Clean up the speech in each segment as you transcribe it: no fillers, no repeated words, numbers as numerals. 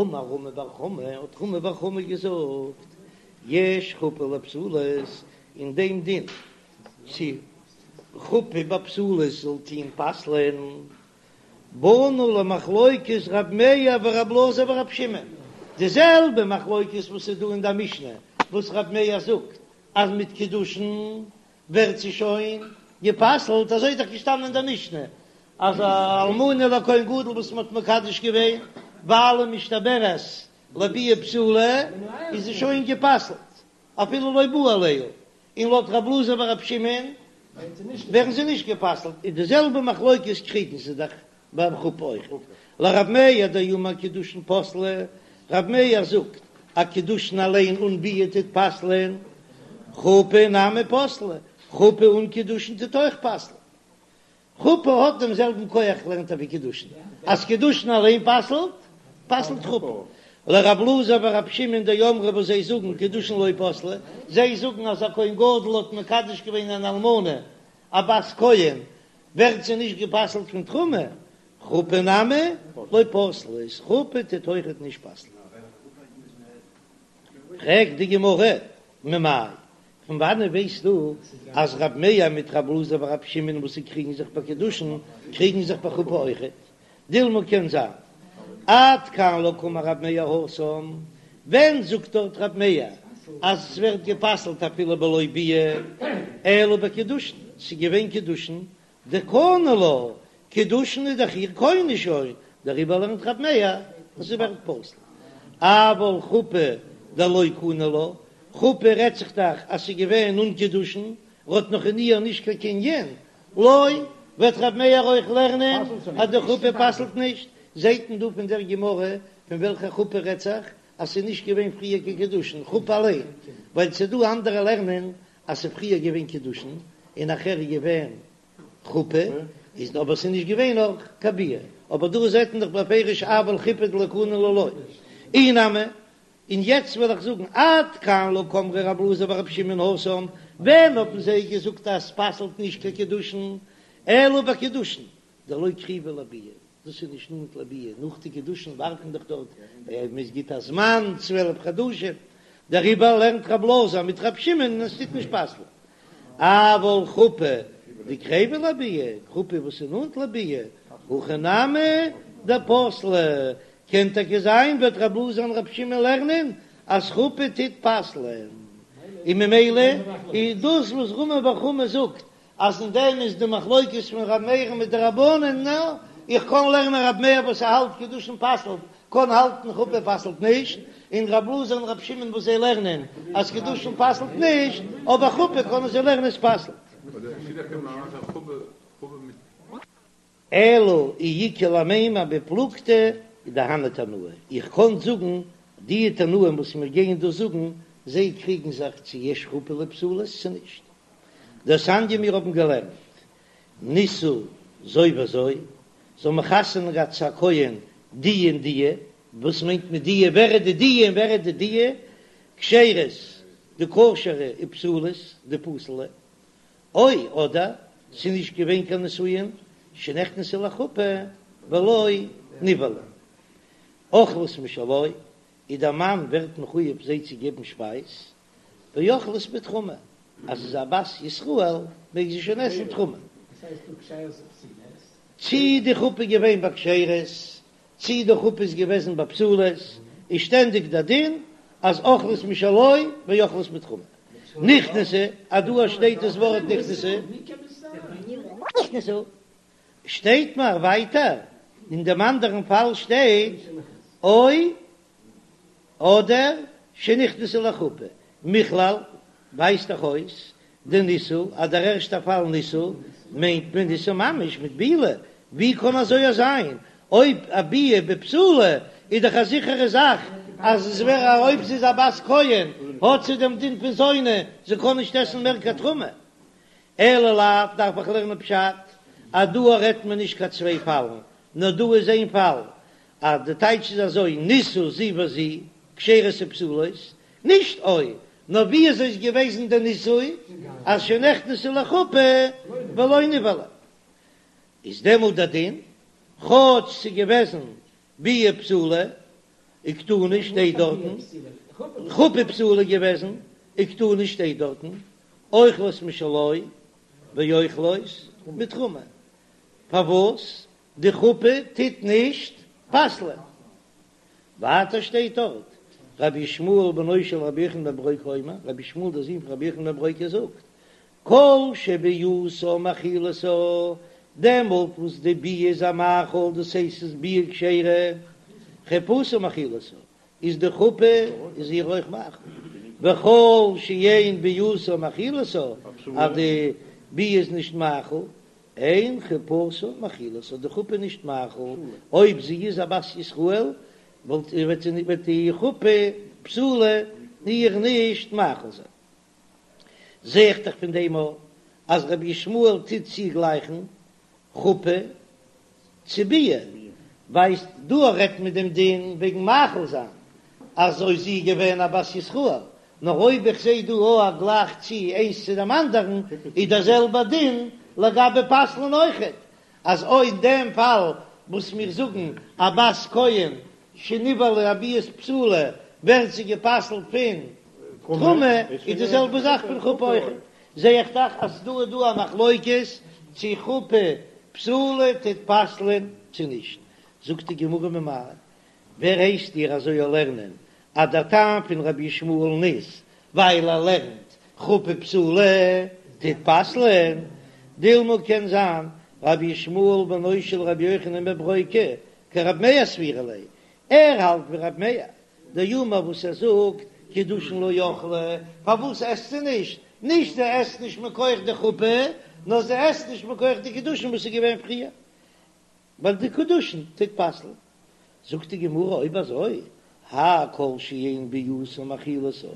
אמר רמי בר חמא, האט רמי בר חמא געזאגט, יש חופה לפסולות, אין דעם דין צו חופה ביי פסולות זאל טוהן פסל'ען, באנו למחלוקת ר' מאיר ור' אלעזר ור' שמעון, די זעלבע מחלוקת וואס איז דא אין די משנה וואס ר' מאיר זאגט אז מיט קידושין ווערט זי שוין גע'פסל'ט, אזוי איז דאך געשטאנען אין די משנה אז א אלמנה לכהן גדול וואס מען האט מקדש געווען ווייל משתעברת לביאה פסולה איז זי שוין גע'פסל'ט אפילו לא בא עליה, און לויט רב אלעזר ורב שמעון ווערן זיי נישט גע'פסל'ט, איז די זעלבע מחלוקת קריגן זיי דאך ביים חופה אויך. לרב מאיר דאמר קידושין פסלי, רב מאיר זאגט אז קידושין אליין אן ביאה טוט פסל'ען, חופה נמי פסלה, חופה אן קידושין טוט אויך פסל'ען. חופה האט דעם זעלבן כח לערנט ער ווי קידושין, אז קידושין אליין פסל'ט, פסל'ט חופה. לרב אלעזר ורב שמעון דאמרי וואס זיי זאגן קידושין לא פסלי, זיי זאגן אז א כהן גדול האט מקדש געווען אן אלמנה א בת כהן, ווערט זי נישט גע'פסל'ט פון תרומה, חופה נמי לא פסלה, איז חופה טוט אויכעט נישט פסל'ן. פרעגט די גמרא, ממאי? פון וואנען ווייסטו אז רב מאיר מיט רב אלעזר ורב שמעון וואס זיי קריגן זיך ביי קידושין קריגן זיך ביי חופה אויכעט? דילמא קען זיין עד כאן לא קאמר רב מאיר התם, ווען זאגט דארט רב מאיר אז עס ווערט גע'פסל'ט אפילו בלא ביאה אלא בקידושין, ס'איז געווען קידושין דקני לה, קידושין איז דאך איר קונה שוין, דעריבער לערנט רב מאיר אז ס'ווערט פסול. אבל חופה דלא קני לה, חופה רעדט זיך דאך אז ס'איז געווען אן קידושין, ר'האט נאך אין איר נישט קיין קנין, לא, וועט רב מאיר אויך לערנען אז די חופה פסל'ט נישט, זעהט מען דא פון דער גמרא פון וועלכע חופה רעדט זיך אז ס'איז נישט געווען פריער קיין קידושין, חופה אליין, ווייל ס'איז דא אנדערע לערנען אז ס'איז פריער געווען קידושין און נאכער איז געווען חופה, איז אבער ס'איז נישט געווען נאך קיין ביאה, אבער דא זעט מען דאך בפירוש אבל חופה דלא קני לה לא, אי נמי, און יעצט וועל איך זאגן עד כאן לא קאמרי רב אלעזר ורב שמעון התם, ווען האבן זיי געזאגט אז ס'פסל'ט נישט קיין קידושין, אלא בקידושין דלא קריבי לביאה, דאס איז נישט נאנט לביאה, נאך די קידושין ווארט מען דאך דארט, מען גיט א זמן 12 חדשים, דעריבער לערנט רב אלעזר מיט רב שמעון און עס טוט נישט פסל'ן. אבל חופה דקריבא לביאה, חופה וואס איז נאנט לביאה, הכי נמי דפסלה, קען טאקע זיין וועט רב אלעזר און רב שמעון לערנען אז חופה טוט פסל'ען, און ממילא איז דאס וואס רמי בר חמא זאגט אז אין דעם איז די מחלוקת פון ר' מאיר'ן מיט די רבנן, נא, איך קען לערנען ר' מאיר וואס ער האלט קידושין פסל'ט, קען האלטן חופה פסל'ט נישט, און ר' אלעזר און ר' שמעון וואס זיי לערנען אז קידושין פסל'ט נישט, אבער חופה קענען זיי לערנען עס פסל'ט. אלא אי איכא למימר בפלוגתא דהני תנאי, איך קען זאגן די תנאים וואס מיר גייען דא זאגן, זיי קריגן זיך צו יש חופה לפסולות צו נישט. דתניא מיר האבן געלערנט נישאו זו וזו, זיי האבן חתונה געהאט צו א כהן די און די, וואס מיינט מען די, ווער איז די די און ווער איז די די, כשרות די כשר'ע ופסולות די פסול'ע, או אדער ס'איז נישט געווען קיין נישואין שנכנסו לחופה ולא נבעלו, אוכלות משלו, איז דער מאן ווערט מחויב זיי צו געבן שפייז, ואוכלות בתרומה, אז זי איז א בת ישראל מעג זי שוין עסן תרומה. צי די חופה איז געווען ביי כשרות, צי די חופה איז געוועזן ביי פסולות, איז שטענדיג דער דין אז אוכלות משלו ואוכלות בתרומה. נכנסו, אז דא שטייט דאס ווארט נכנסו, נכנסו, שטייט מיר ווייטער, אין דעם אנדערן פאל שטייט או אדער שנכנסו לחופה, מכלל ווייזט דאך אויס דנישאו אז דער ערשטער פאל נישאו מיינט מען נישאו ממש מיט בעילה, ווי קען אזוי זיין אויב א ביאה בפסולה איז דאך א זיכערע זאך אז עס ווער אויב זי איז א בת כהן האט זי דעם דין פון זונה זי קען נישט עסן מער קיין תרומה, אלא לאו דארף איך לערנען פשט אז דא רעדט מען נישט קיין צוויי פאלן נאר דא איז איין פאל אז די טייטש איז אזוי, נישאו זו וזו, כשרות ופסולות, נישט או, נאר ווי אזוי איז געוועזן די נישוי, אז שנכנסו לחופה ולא נבעלו, איז דעמאלט די דין, כאטש ס'איז געוועזן ביאה פסולה. וקתני שטייט דארטן, חופה פסולה געוועזן, וקתני שטייט דארטן, אוכלות משלו ואוכלות מתרומה, פארוואס די חופה טוט נישט פסל'ען? ווייטער שטייט דארט, רבי ישמעאל בנו של רבי יוחנן בן ברוקה אומר, רבי ישמעאל דער זון פון רבי יוחנן בן ברוקה זאגט, כל שביאתה מאכילתה, דעמאלט וואס די ביאה איז איר מאכיל, דאס הייסט ס'איז ביאה כשרה, חופתה מאכילתה, איז די חופה איז איר אויך מאכיל, וכל שאין ביאתה מאכילתה, אז די ביאה איז נישט מאכיל, אין חופתה מאכילתה, די חופה נישט מאכיל, אויב זי איז א בת ישראל, וואלט וועט די חופה פסולה איר נישט מאכיל זיין. זע איך דאך פון דעם אויך אז רבי ישמעאל טוט צוגלייכן חופה צו ביאה, ווייסט דא רעדט מען דעם דין וועגן מאכיל זיין אז אויב זי איז געווען א בת ישראל, נאר אויב איך זע דא אויך א גלייך צו איינס צו דעם אנדערן איז דער זעלבער דין לגבי פסל'ן אויכעט, אז אויך אין דעם פאל וואס מיר זאגן א בת כהן שנבעלה ביאת בתולה ווערט זי גע'פסל'ט פון תרומה, איז די זעלבע זאך פון חופה אויכעט, זע איך דאך אז דא איז דא א מחלוקת צו חופה פסולה טוט פסל'ען צו נישט, זאגט די גמרא ממאי, ווער הייסט דיר אזוי א לערנען אז דער טעם פון רבי ישמעאל'ן איז ווייל ער לערנט חופה פסולה טוט פסל'ען, דילמא קען זיין רבי ישמעאל בנו של רבי יוחנן בן ברוקה כרבי מאיר סבירא ליה, ער האלט ווי רבי מאיר, דאמר וואס ער זאגט קידושין לא אכלה, פארוואס עסט זי נישט? נישט זי עסט נישט מכח די חופה, נאר זי עסט נישט מכח די קידושין וואס איז געווען פריער, ווייל די קידושין טוט פסל'ן. זאגט די גמרא אויב אזוי, האי כל שאין ביאתה מאכילתה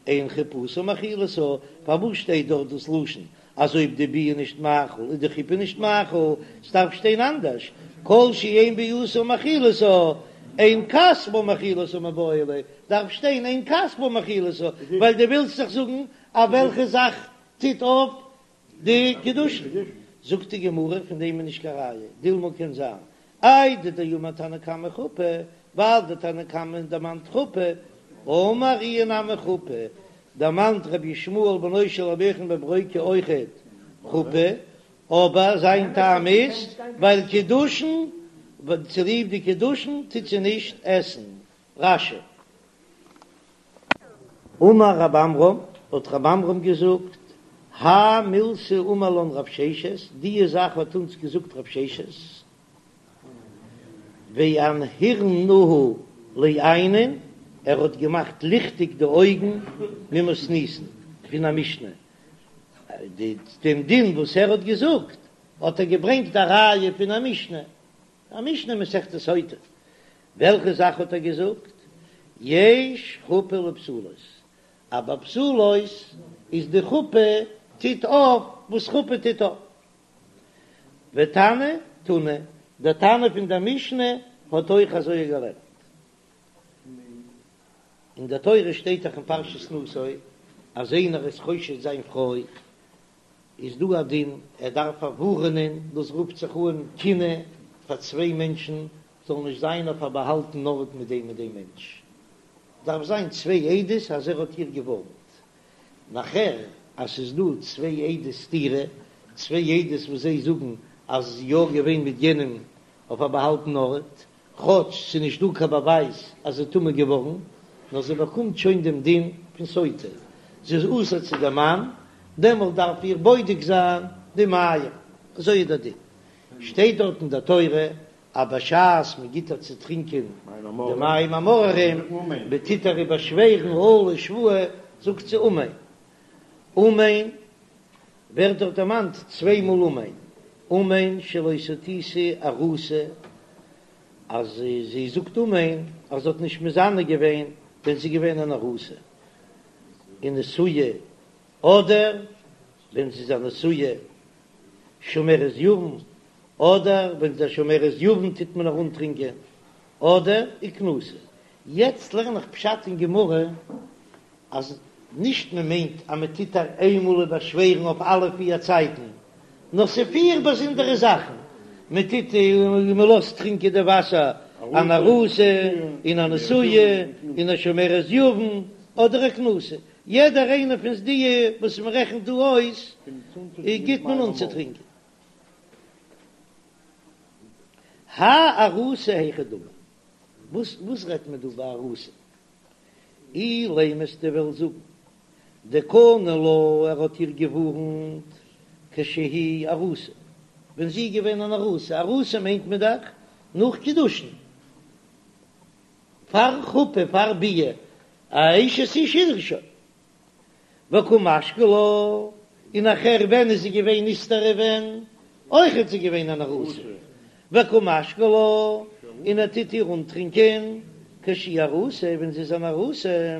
אין חופתה מאכילתה, פארוואס שטייט דארט דאס לשון אז אויב די ביאה נישט מאכיל איז די חופה נישט מאכיל, ס'דארף שטיין אנדערש, כל שאין ביאתה מאכילתה אין כספה מאכילתה מיבעי ליה, דארף שטיין אין כספה מאכילתה, ווייל דו ווילסט דאך זאגן אז וועלכע זאך טוט אויף די קידושין, זאגט די גמרא פון דעם איז נישט קיין ראיה, דילמא קען זיין איידי דאמר תנא קמא חופה, ווייל די תנא קמא דערמאנט חופה, אמר איהו נמי חופה, דערמאנט רבי ישמעאל בנו של רבי יוחנן בן ברוקה אויכעט חופה, אבער זיין טעם איז ווייל קידושין, צוליב די קידושין טוט זי נישט עסן. רש"י. אמר רב עמרם, האט רב עמרם געזאגט, האי מילתא אמר לן רב ששת, דיע זאך האט אונז געזאגט רב ששת, ואנהרינהו לעיינין, ער האט געמאכט ליכטיג די אויגן ממתניתין, פון א משנה, דעם דין וואס ער האט געזאגט האט ער געברענגט א ראיה פון א משנה, א משנה מסכת סוטה, וועלכע זאך האט ער געזאגט? יש חופה לפסולות, אז ביי פסולות איז די חופה טוט אויף וואס חופה טוט אויף. ותנא תונא, דער תנא פון דער משנה האט אויך אזוי געלערנט. אין דער תורה שטייט דאך אין פרשת נשא אז איינער איז חושד זיין פרוי איז דא א דין ער דארף פארווארענען, דאס רופט זיך אן קינוי פאר צוויי מענטשן זאלן נישט זיין אויף א באהאלטן ארט מיט דעם און דעם מענטש, דארף זיין צוויי עדות אז ער האט איר געווארנט, נאכער אז ס'איז דא צוויי עדות סתירה, צוויי עדות וואס זיי זאגן אז זי איז יא געווען מיט יענעם אויף א באהאלטן ארט, כאטש ס'איז נישט דא קיין באווייז אז זי איז טמא געווארן, נאר זי באקומט שוין דעם דין פון סוטה, זי איז אסור צו דעם מאן, דעמאלט דארף איר בודק זיין די מים, אזוי איז דער דין, שטייט דארט אין דער תורה אז בשעת מען גיט איר צו טרינקען די מים המאררים, מען טוט איר באשווערן אלה שבועה, זאגט זי אמן, אמן ווערט דארט דערמאנט צוויי מאל אמן, אמן שלא סטיתי ארוסה, אז זי זאגט אמן אז זי האט נישט מזנה געווען ווען זי איז געווען אן ארוסה, ונשואה, אדער ווען זי איז א נשואה שומרת יבם, אדער ווען זי איז א שומרת יבם טוט מען איר אנטרינקען, אדער וכנוסה. יעצט לערן איך פשט אין גמרא אז נישט מען מיינט אז מען טוט איר איינמאל באשווערן אויף אלע פיר צייטן, נאר ס'איז פיר באזונדערע זאכן, מען טוט און מען לאזט טרינקען די וואסער. אן ארוסה און א נשואה און א שומרת יבם אדער א כנוסה, יעדער איינער פון די וואס מען רעכנט דא אויס גיט מען אנצוטרינקען. האי ארוסה היכי דמי, וואס וואס רעדט מען דא ביי ארוסה? אילימא וועסטו וועלן זאגן דקני לה, ער האט איר געווארנט כשהיא ארוסה, ווען זי איז געווען אן ארוסה, ארוסה מיינט מען דאך נאך קידושין, פאר חופה, פאר ביאה, א אשת איש איז זי שוין. וקא משקי לה, און נאכער ווען איז זי געווען נסתרה ווען? אויך איז זי געווען אן ארוסה, וקא משקי לה, און ער טוט איר אנטרינקען כשהיא ארוסה, ווען זי איז אן ארוסה,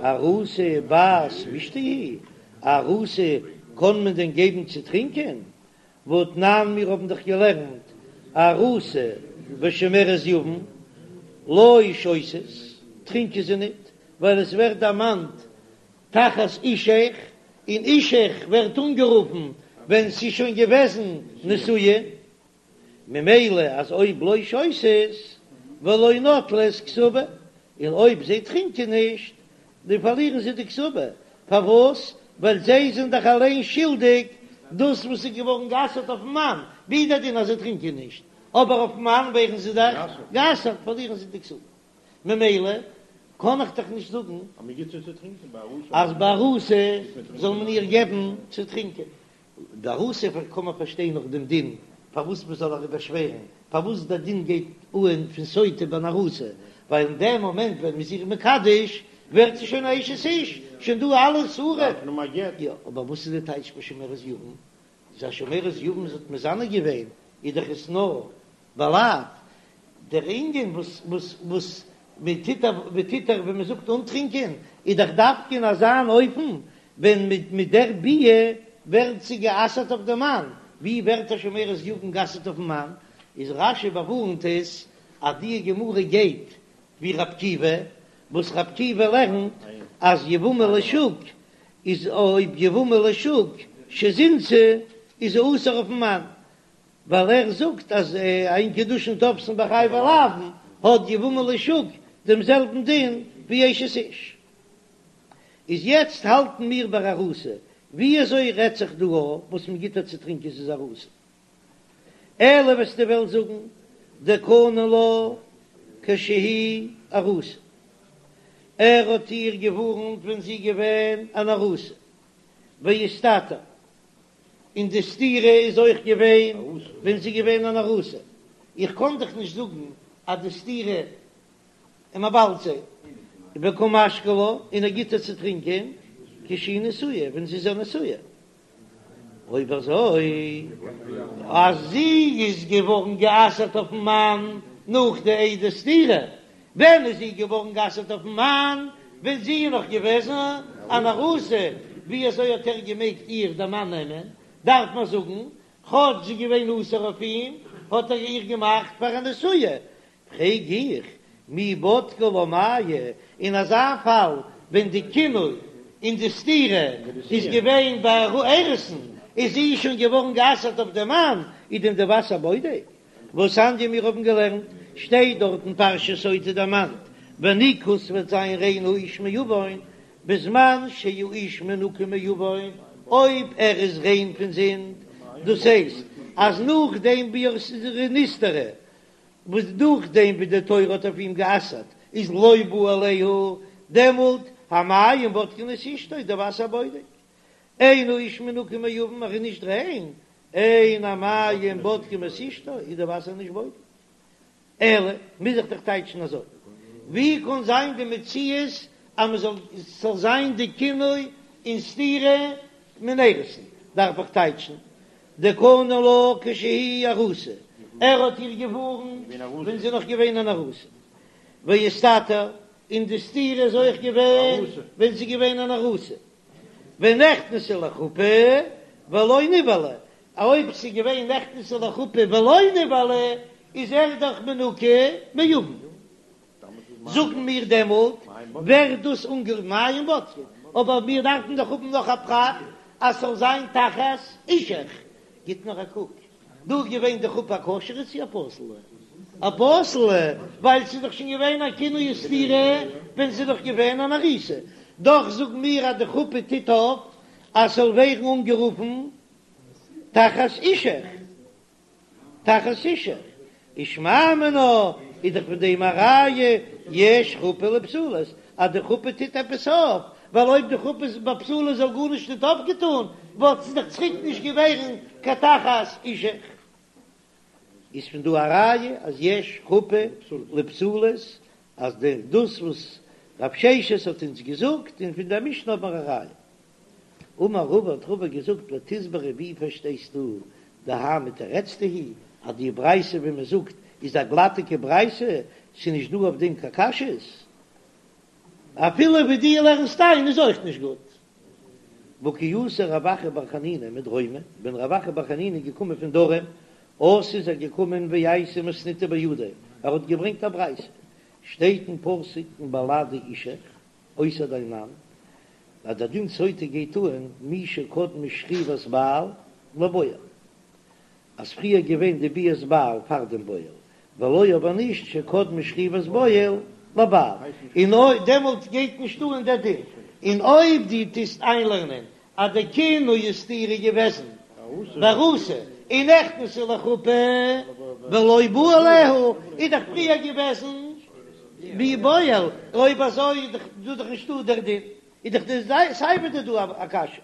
ארוסה בת משתה היא, ארוסה קען מען דען געבן צו טרינקען? והתנן מיר האבן דאך געלערנט ארוסה ושומרת יבם לא שותות, טרינקען זיי ניט, ווייל עס ווערט דערמאנט תחת אישך, און אישך ווערט אנגערופן ווען ס'איז שוין געוועזן נישואין, ממילא אז אויב לא שותות ולא נוטלות כתובה, און אויב זיי טרינקען נישט, דאן פארלירן זיי די כתובה, פארוואס? ווייל זיי זענען דאך אליין שולדיג דאס וואס איז געווארן גע'אסר'ט אויפן מאן, ווי דער דין אז זיי טרינקען נישט, אבער אויפן מאן ווערן זיי דאך גע'אסר'ט, פארלירן זיי די כתובה. ממילא קען איך דאך נישט זאגן אז ביי ארוסה זאל מען איר געבן צו טרינקען. די ארוסה קען מען פארשטיין נאך דעם דין פארוואס מען זאל איר באשווערן, פארוואס דער דין גייט אהן פון סוטה ביי אן ארוסה, ווייל אין דעם מאמענט ווען מען איז איר מקדש ווערט זי שוין א אשת איש, שוין דא אלע איסורים. יא, אבער וואס איז די טייטש ביי שומרת יבם? איז א שומרת יבם זי האט מזנה געווען, איז דאך עס נאר בלאו, דער ענין וואס וואס וואס מען טוט מען טוט דאך ווען מען זאגט אנטרינקען איז דאך דווקא אין אזא אן אופן ווען מיט מיט דער ביאה ווערט זי גע'אסר'ט אויף דעם מאן, ווי ווערט א שומרת יבם גע'אסר'ט אויפן מאן? איז רש"י באווארנט עס אז די גמרא גייט ווי ר' עקיבא, וואס ר' עקיבא לערנט אז יבמה לשוק איז אויב יבמה לשוק שזינתה איז זי אסור אויפן מאן, ווייל ער זאגט אז אין קידושין תופסין בחייבי לאוין האט יבמה לשוק דעם זעלבן דין ווי אשת איש. איז יעצט האלטן מיר ביי ארוסה, ווי אזוי רעדט זיך דא וואס מען גיט איר צו טרינקען ס'איז ארוסה? אלא וועסטו וועלן זאגן דקני לה כשהיא ארוסה, ער האט איר געווארנט ווען זי איז געווען אן ארוסה, ואיסתתר, און די סתירה איז אויך געווען ווען זי איז געווען אן ארוסה, איך קען דאך נישט זאגן אז די סתירה און מען באלד זי וקא משקי לה און ער גיט איר צו טרינקען כשהיא נשואה ווען זי איז א נשואה, אויב אזוי אז זי איז געווארן גע'אסר'ט אויפן מאן נאך די עדי סתירה, ווען איז זי געווארן גע'אסר'ט אויפן מאן? ווען זי איז נאך געוועזן אן ארוסה, ווי אזוי האט ער געמעגט איר דער מאן נעמען? דארף מען זאגן, כאטש זי איז געווען אסור אויף אים, האט ער איר געמאכט פאר א נשואה. פרעג איך, מי בדקי לה מיא, אין אזא פאל ווען די קינוי און די סתירה איז געווען ביי אירוסין, איז זי שוין געווארן גע'אסר'ט אויף דעם מאן, איז דען די וואסער בודק? והתניא מיר האבן געלערנט, שטייט דארט אין פרשת סוטה דערמאנט, ונקה ס'וועט זיין ריין האיש מעון, בזמן שהאיש מנוקה מעון, אויב ער איז ריין פון זינד, דאס הייסט אז נאכדעם ווי ער איז נסתרה, וואס נאכדעם ווי די תורה האט אויף אים גע'אסר'ט איז לא בא עליה, דעמאלט המים בודקין את אשתו, די וואסער בודק, אין האיש מנוקה מעון, ער איז נישט ריין, אין המים בודקים את אשתו, איז די וואסער נישט בודק. אלא, מוז איך דאך טייטשן אזוי, ווי קען זיין די מציאות אז מען זאל, ס'זאל זיין די קינוי און סתירה מן האירוסין, דארף איך טייטשן דקני לה כשהיא ארוסה, ער האט איר געווארנט ווען זי איז נאך געווען אן ארוסה, ואיסתתר, און די סתירה איז אויך געווען ווען זי איז געווען אן ארוסה. ונכנסה לחופה ולא נבעלה, אויב ס'איז געווען נכנסה לחופה ולא נבעלה איז ער דאך מנוקה מעון, זאגן מיר דעמאלט ווערט דאס אנגערופן מים בודקין, אבער מיר דארפן דאך האבן נאך א פרט אז ס'זאל זיין תחת אישך, גיט נאר א קוק, דא איז געווען די חופה א כשר'ע צו א פסול'ע? א פסול'ע, ווייל ס'איז דאך שוין געווען א קינוי וסתירה ווען ס'איז דאך געווען אן ארוסה. דאך זאגן מיר אז די חופה טוט אויף אז ס'זאל ווערן אנגערופן תחת אישך. תחת אישך. ושמע מינה איז דאך פון דעם א ראיה יש חופה לפסולות אז די חופה טוט עפעס אויף, ווייל אויב די חופה איז ביי פסולות זאל גארנישט ניט אויפגעטאן וואלט זי דאך צוריק נישט געווערן קיין תחת אישך. איז פון דא א ראיה אז יש חופה לפסולות אז דאס וואס רב ששת האט אונז געזאגט און פון דער משנה האט מען א ראיה. אמר רבא האט רבא געזאגט לתסברא ווי פארשטייסטו דהא מתרצתא היא אז די ברייתא ווי מען זאגט איז א גלאטיגע ברייתא ס'איז נישט דא אויף דעם קיין קשיות אפילו ווי דו לערנסט איין איז אויך נישט גוט. והא כי אתא רב אחא בר חנינא מדרומא, ווען רב אחא בר חנינא איז געקומען פון דרום, אתא איז ער געקומען ואייתי מתניתא בידיה, ער האט געברענגט א ברייתא, שטייט אין פסוק מבלעדי אישך, אויסער דיין מאן, אז דער דין סוטה גייט אן מי שקדמה שכיבת בעל לבועל, אז פריער געווען די ביאת בעל פאר דעם בועל, ולא אבער נישט שקדמה שכיבת בועל לבעל, און אויב דעמאלט גייט נישט אן דער דין, און אויב דו טוסט איינלערנען אז די קינוי וסתירה איז געוועזן בארוסה און נכנסה לחופה ולא בא עליה, איז דאך פריער געוועזן ווי בועל, אויב אזוי איז דאך דא דאך נישטא דער דין, איז דאך די סיי ווי דא א קשיא.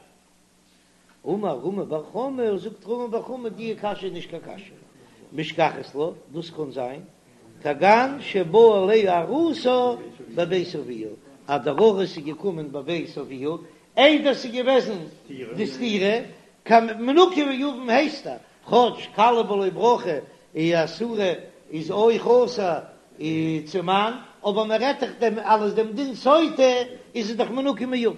אמר רמי בר חמא, זאגט רמי בר חמא, די קשיא איז נישט קיין קשיא, משכחת לה, דאס קען זיין, כגון שבא עליה ארוסה בבית אביה, אז דער ארוס איז געקומען בבית אביה, איידער ס'איז געוועזן די סתירה, קיין מנוקה מיבם הייסט ער, כאטש כלה בלא ברכה איז אסורה איז אויך אסור צום מאן, אבער מען רעדט דאך דעם אלעס דעם דין סוטה איז עס דאך מנוקה מיבם.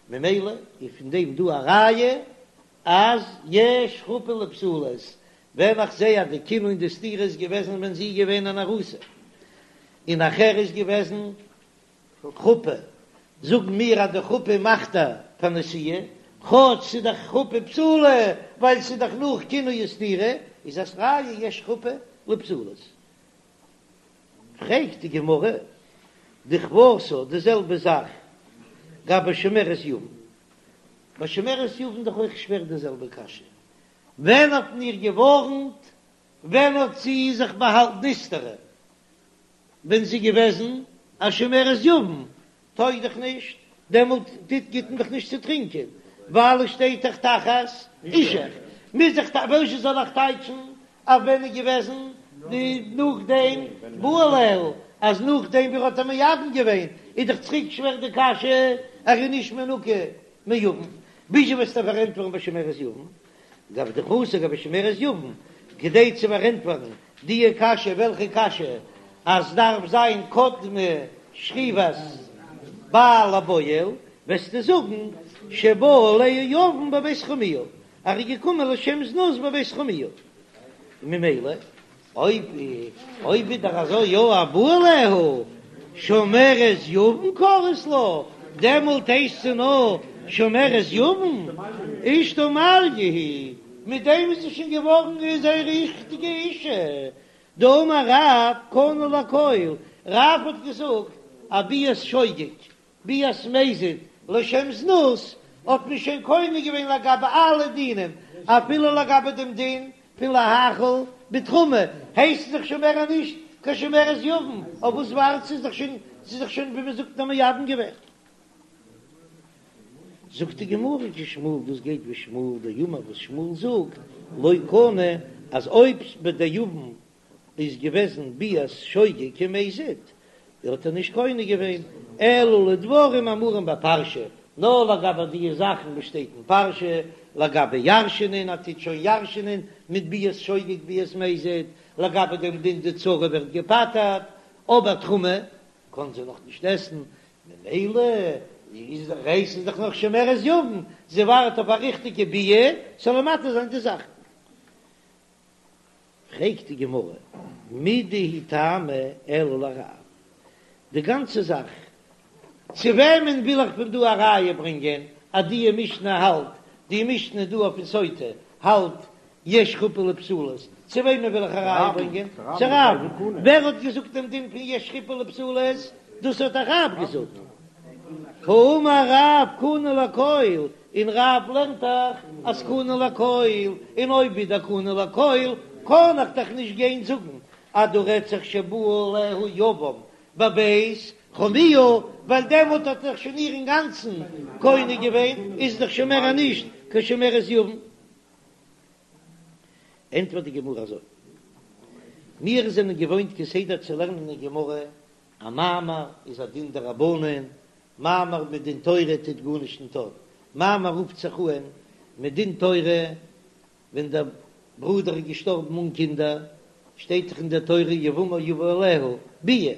ממילא איז פון דעם דא א ראיה אז יש חופה לפסולות, ווען איך זעה אז די קינוי און די סתירה איז געוועזן ווען זי איז געווען אן ארוסה, און נאכער איז געוועזן חופה, זאגן מיר אז די חופה מאכט איר פאר נשואה, כאטש ס'איז דאך חופה פסולה ווייל ס'איז דאך נאך קינוי וסתירה, איז עס ראיה יש חופה לפסולות. פרעגט די גמרא, דכוותה די זעלבע זאך גבי שומרת יבם, ביי שומרת יבם דאך אויך שווער די זעלבע קשיא, ווען האט מען איר געווארנט, ווען האט זי זיך באהאלטן נסתרה, ווען זי געוועזן א שומרת יבם, טויג דאך נישט, דעמאלט טוט גיט מען דאך נישט צו טרינקען, ווייל עס שטייט דאך תחת אישך, מוז איך וואזשע זאל איך טייטשן אז ווען איז געוועזן די נאכדעם בא עליה, אז נאכדעם ווי ער האט איר מייבם געווען, איז דאך צוריק שווער די קשיא, ער איז נישט מנוקה מיבם, וויאזוי וועסטו פארענטפערן ביי שומרת יבם? גבי דכוותה גבי שומרת יבם, כדי צו פארענטפערן די קשיא, וועלכע קשיא? אז דארף זיין קדמה שכיבת בעל לבועל, וועסטו זאגן שבא עליה יבם בבית חמיה, ער איז געקומען לשם זנות בבית חמיה, ממילא אויב אויב איז דאך אזוי יא א בא עליה שומרת יבם קרית לה, דעמאלט הייסט זי נאר שומרת יבם, אשתו מעליא היא, מיט דעם איז זי שוין געווארן זיין ריכטיגע אישה, דאמר רב קנה לכל, רב האט געזאגט א ביאת שוגג ביאת מזיד לשם זנות האט מען שוין קונה געווען לגבי אלע דינים, אפילו לגבי דעם דין פון להאכיל בתרומה, הייסט זי דאך שוין מער נישט קיין שומרת יבם, אויף וואס ווארט זי? זי איז דאך שוין ווי מען זאגט א מייבם געווען. זאגט די גמרא כשמואל, דאס גייט ווי שמואל דאמר וואס שמואל זאגט לא קנה אז אויב ביי די יבם איז געוועזן ביאת שוגג כמזיד, האט ער נישט קונה געווען, אלא לדברים האמורים בפרשה, נאר לגבי די זאכן וואס שטייט אין פרשה, לגבי ירש'נען, ער טוט שוין ירש'נען מיט ביאת שוגג ביאת מזיד, לגבי דעם דין די צרה ווערט געפטר'ט, אבער תרומה קען זי נאך נישט עסן, ממילא איז דאך הייסט זי דאך נאך שומרת יבם, זי ווארט אויף א ריכטיגע ביאה, ס'זאל איר מתיר זיין די זאכן. פרעגט די גמרא, מידי הוא טעמא אלא לרב, די גאנצע זאך, צו וועמען וויל איך פון דא א ראיה ברענגען אז די משנה האלט, די משנה דא אויף סוטה האלט יש חופה לפסולות. צו וועמען וויל איך א ראיה ברענגען? צו רב. ווער האט געזאגט דעם דין פון יש חופה לבתולות? דאס האט דאך רב געזאגט. האמר רב קנה לכל, און רב לערנט דאך אז קנה לכל, און אויב איז דער קנה לכל, קען איך דאך נישט גיין זאגן אז דא רעדט זיך שבא עליה יבם בבית חמיה, ווייל דעמאלט האט ער דאך שוין איר אינגאנצן קונה געווען, איז דאך שוין מער נישט קיין שומרת יבם. ענטפערט די גמרא אזוי, מיר זענען געוואוינט כסדר צו לערנען אין גמרא, א מאמר איז א דין דרבנן, מאמר מדין תורה טוט גארנישט ניט אויף, מאמר רופט זיך אהן מדין תורה ווען דער ברודער איז געשטארבן אן קינדער, שטייט דאך אין דער תורה יבמה יבא עליה ביאה,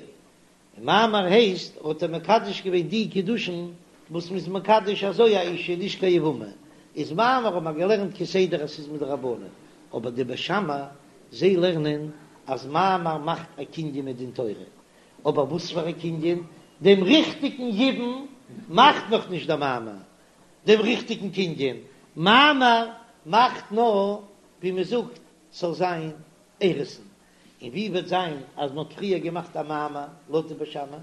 און מאמר הייסט האט ער מקדש געווען די קידושין וואס מ'איז מקדש אזוי א אישה נישט קיין יבמה, איז מאמר האט מען געלערנט כסדר אז ס'איז מדרבנן, אבער די בית שמאי זיי לערנען אז מאמר מאכט א קנין מדין תורה, אבער וואס פאר א קנין? דעם ריכטיגן יבום מאכט נאך נישט דער מאמר, דעם ריכטיגן קנין, מאמר מאכט נאר ווי מ'זאגט ס'זאל זיין אירוסין, און ווי וועט זיין אז מ'האט פריער געמאכט א מאמר לויט די בית שמאי,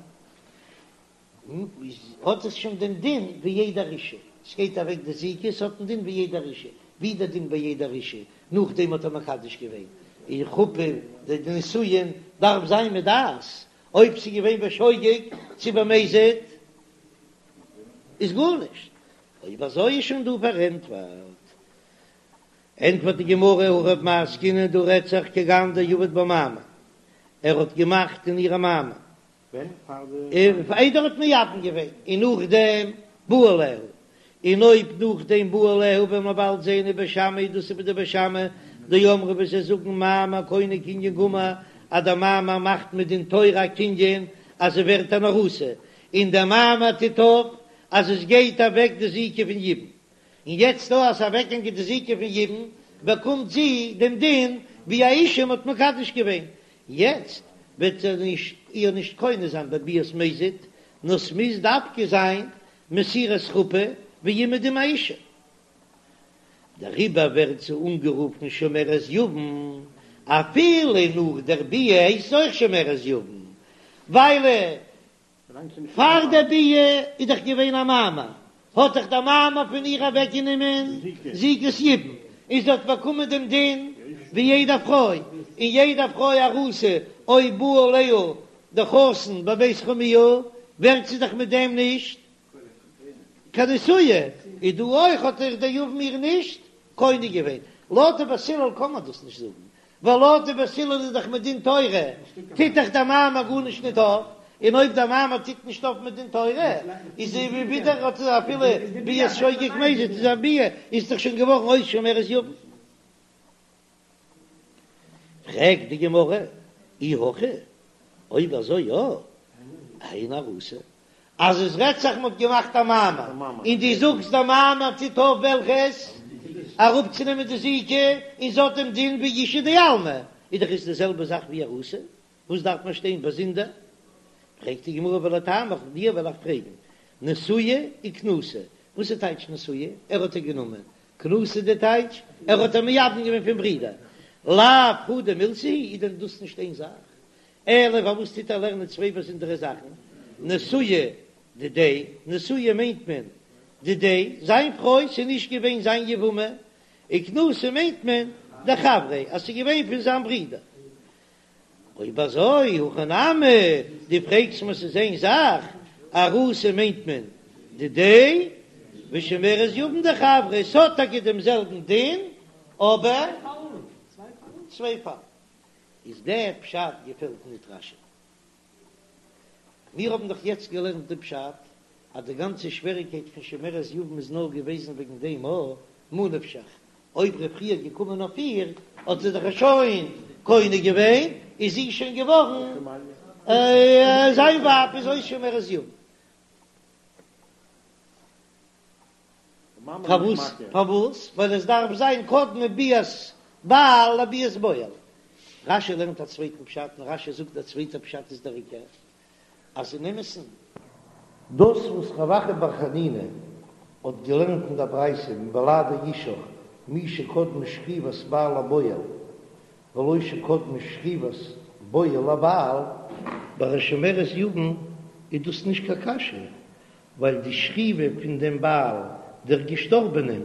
האט עס שוין דעם דין ווי יעדער אישה, ס'גייט אוועק די זיקה, ס'האט דעם דין ווי יעדער אישה, ווי דער דין ביי יעדער אישה, נאכדעם האט ער מקדש געווען, און חופה די נישואין דארף זיין מיט דעת, אויב ס'איז געווען בשוגג צו במזיד איז גארנישט, אויב אזוי איז שוין דא פארענטפערט. ענטפערט די גמרא, הכא במאי עסקינן דא רעדט זיך כגון דעבד בה מאמר, ער האט געמאכט אין איר א מאמר, איידער ער האט מייבם געווען, און נאכדעם בא עליה, און אויב נאכדעם בא עליה וועלן מיר באלד זען ובית שמאי דאס איז ווי די בית שמאי דאמרי וואס זיי זאגן מאמר קונה קנין גמור אז דער מאמר מאכט מדין תורה א קנין אז זי ווערט אן ארוסה, און דער מאמר טוט אויף אז עס גייט אוועק די זיקה פון יבום. און יעצט דא אז ס'איז אוועקגעגאנגען די זיקה פון יבום, באקומט זי דעם דין ווי א אישה מ'האט מקדש געווען, יעצט וועט ער נישט איר נישט קונה זיין בביאת מזיד, נאר ס'מוז דווקא זיין מסירת חופה ווי אומעדום א אישה. דעריבער ווערט זי אנגערופן שומרת יבם, אפילו נאך דער ביאה הייסט זי אויך שומרת יבם, ווייל פאר דער ביאה איז דאך געווען א מאמר, האט דאך דער מאמר פון איר אוועקגענומען זיקת יבום, און זי האט באקומען דעם דין ווי יעדע פרוי, און יעדע פרוי ארוסה אויב בא עליה דער חתן בבית חמיה ווערט זי דאך מיט דעם נישט קיין נשואה, איז דא אויך האט דאך דער יבם איר נישט קונה געווען, לויט די בית הלל קען מען דאס נישט זאגן, ווייל לויט די בית הלל איז דאך מדין תורה טוט דאך דער מאמר גארנישט ניט אויף, און אויב דער מאמר טוט נישט אויף מדין תורה איז ווי ווידער האט ער אפילו ביאת שוגג מזיד איז א ביאה איז דאך שוין געווארן אויס שומרת יבם. פרעגט די גמרא, אי הכי, אויב אזוי יא, היינו ארוסה, אז עס רעדט זיך מ'האט געמאכט א מאמר, און דו זאגסט דער מאמר טוט אויף וועלכעס? אראפצונעמען די זיקה, און ס'האט דעם דין ווי אישה דעלמא, איז דאך עס די זעלבע זאך ווי ארוסה, וואס דארף מען שטיין באזונדער? פרעגט די גמרא ולטעמיך, דיר וועל איך פרעגן, נשואה וכנוסה, וואס איז טייטש נשואה? ער האט איר גענומען, כנוסה די טייטש, ער האט איר מייבם געווען פון ברידער, לאו חדא מילתא היא, איז דען דאס נישט איין זאך? אלא פארוואס טוט ער לערנען צוויי באזונדערע זאכן? נשואה דידיה, נשואה מיינט מען דידיה, זיין פרוי, ס'איז נישט געווען זיין יבמה, וכנוסה מיינט מען דחבריה, אז ס'איז געווען פון זיין ברודער. אויב אזוי, הכא נמי, דו פרעגסט מיר ס'איז איין זאך, ארוסה מיינט מען דידיה, ושומרת יבם דחבריה, ס'האט טאקע דעם זעלבן דין, אבער צוויי פאלן. איז דער פשט געפעלט ניט רש"י. מיר האבן דאך יעצט געלערנט די פשט אז די גאנצע שוועריקייט פון שומרת יבם איז נאר געוועזן וועגן דעם א ממה נפשך, אויב ר' חייא איז געקומען אויף איר האט זי דאך שוין קונה געווען, איז זי שוין געווארן זיין ווייב איז אויס שומרת יבם. פארוואס? פארוואס? ווייל עס דארף זיין קדמה ביאת בעל לביאת בועל. רש"י לערנט א צווייטן פשט און רש"י זאגט דער צווייטער פשט איז דער עיקר, אז אין אמת'ן, דאס וואס רב אחא בר חנינא האט געלערנט אין דער ברייתא מבלעדי אישך מי שקדמה שכיבת בעל לבועל. ולא שקדמה שכיבת בועל לבעל, ביי א שומרת יבם איז דאס נישט קיין קשיא, ווייל די שכיבה פון דעם בעל דער געשטארבענעם,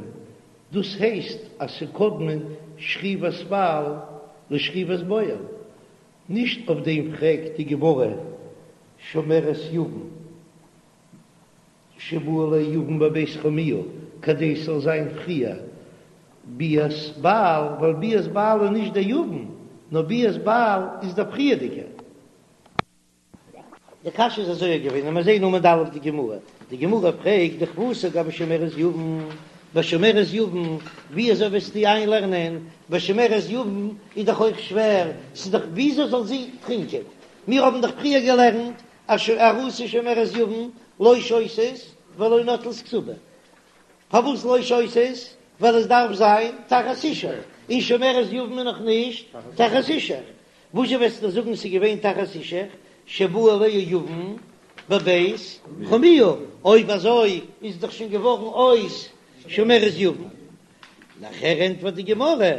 דאס הייסט אז ס'קדמה שכיבת בעל לשכיבת בועל, נישט אויף דעם פרעגט די גמרא שומרת יבם שבא עליה יבם בבית חמיה כדי ס'זאל זיין פריער ביאת בעל, ווייל ביאת בעל איז נישט דער יבם, נאר ביאת בעל איז דער פריערדיגער. די קשיא איז אזוי געווען, און מיר זעהן עמוד א' די גמרא, די גמרא פרעגט דכוותה גבי שומרת יבם, ביי שומרת יבם ווי אזוי וועסטו איינלערנען, ביי שומרת יבם איז דאך אויך שווער, ס'איז דאך וויאזוי זאל זי טרינקען, מיר האבן דאך פריער געלערנט אז ארוסה ושומרת יבם לא שותות ולא נוטלות כתובה, פארוואס לא שותות? ווייל עס דארף זיין תחת אישך, און שומרת יבם איז נאך נישט תחת אישך, וואזשע וועסטו זאגן ס'איז געווען תחת אישך שבא עליה יבם בבית חמיה, אויב אזוי איז דאך שוין געווארן אויס שומרת יבם. נאכער ענטפערט די גמרא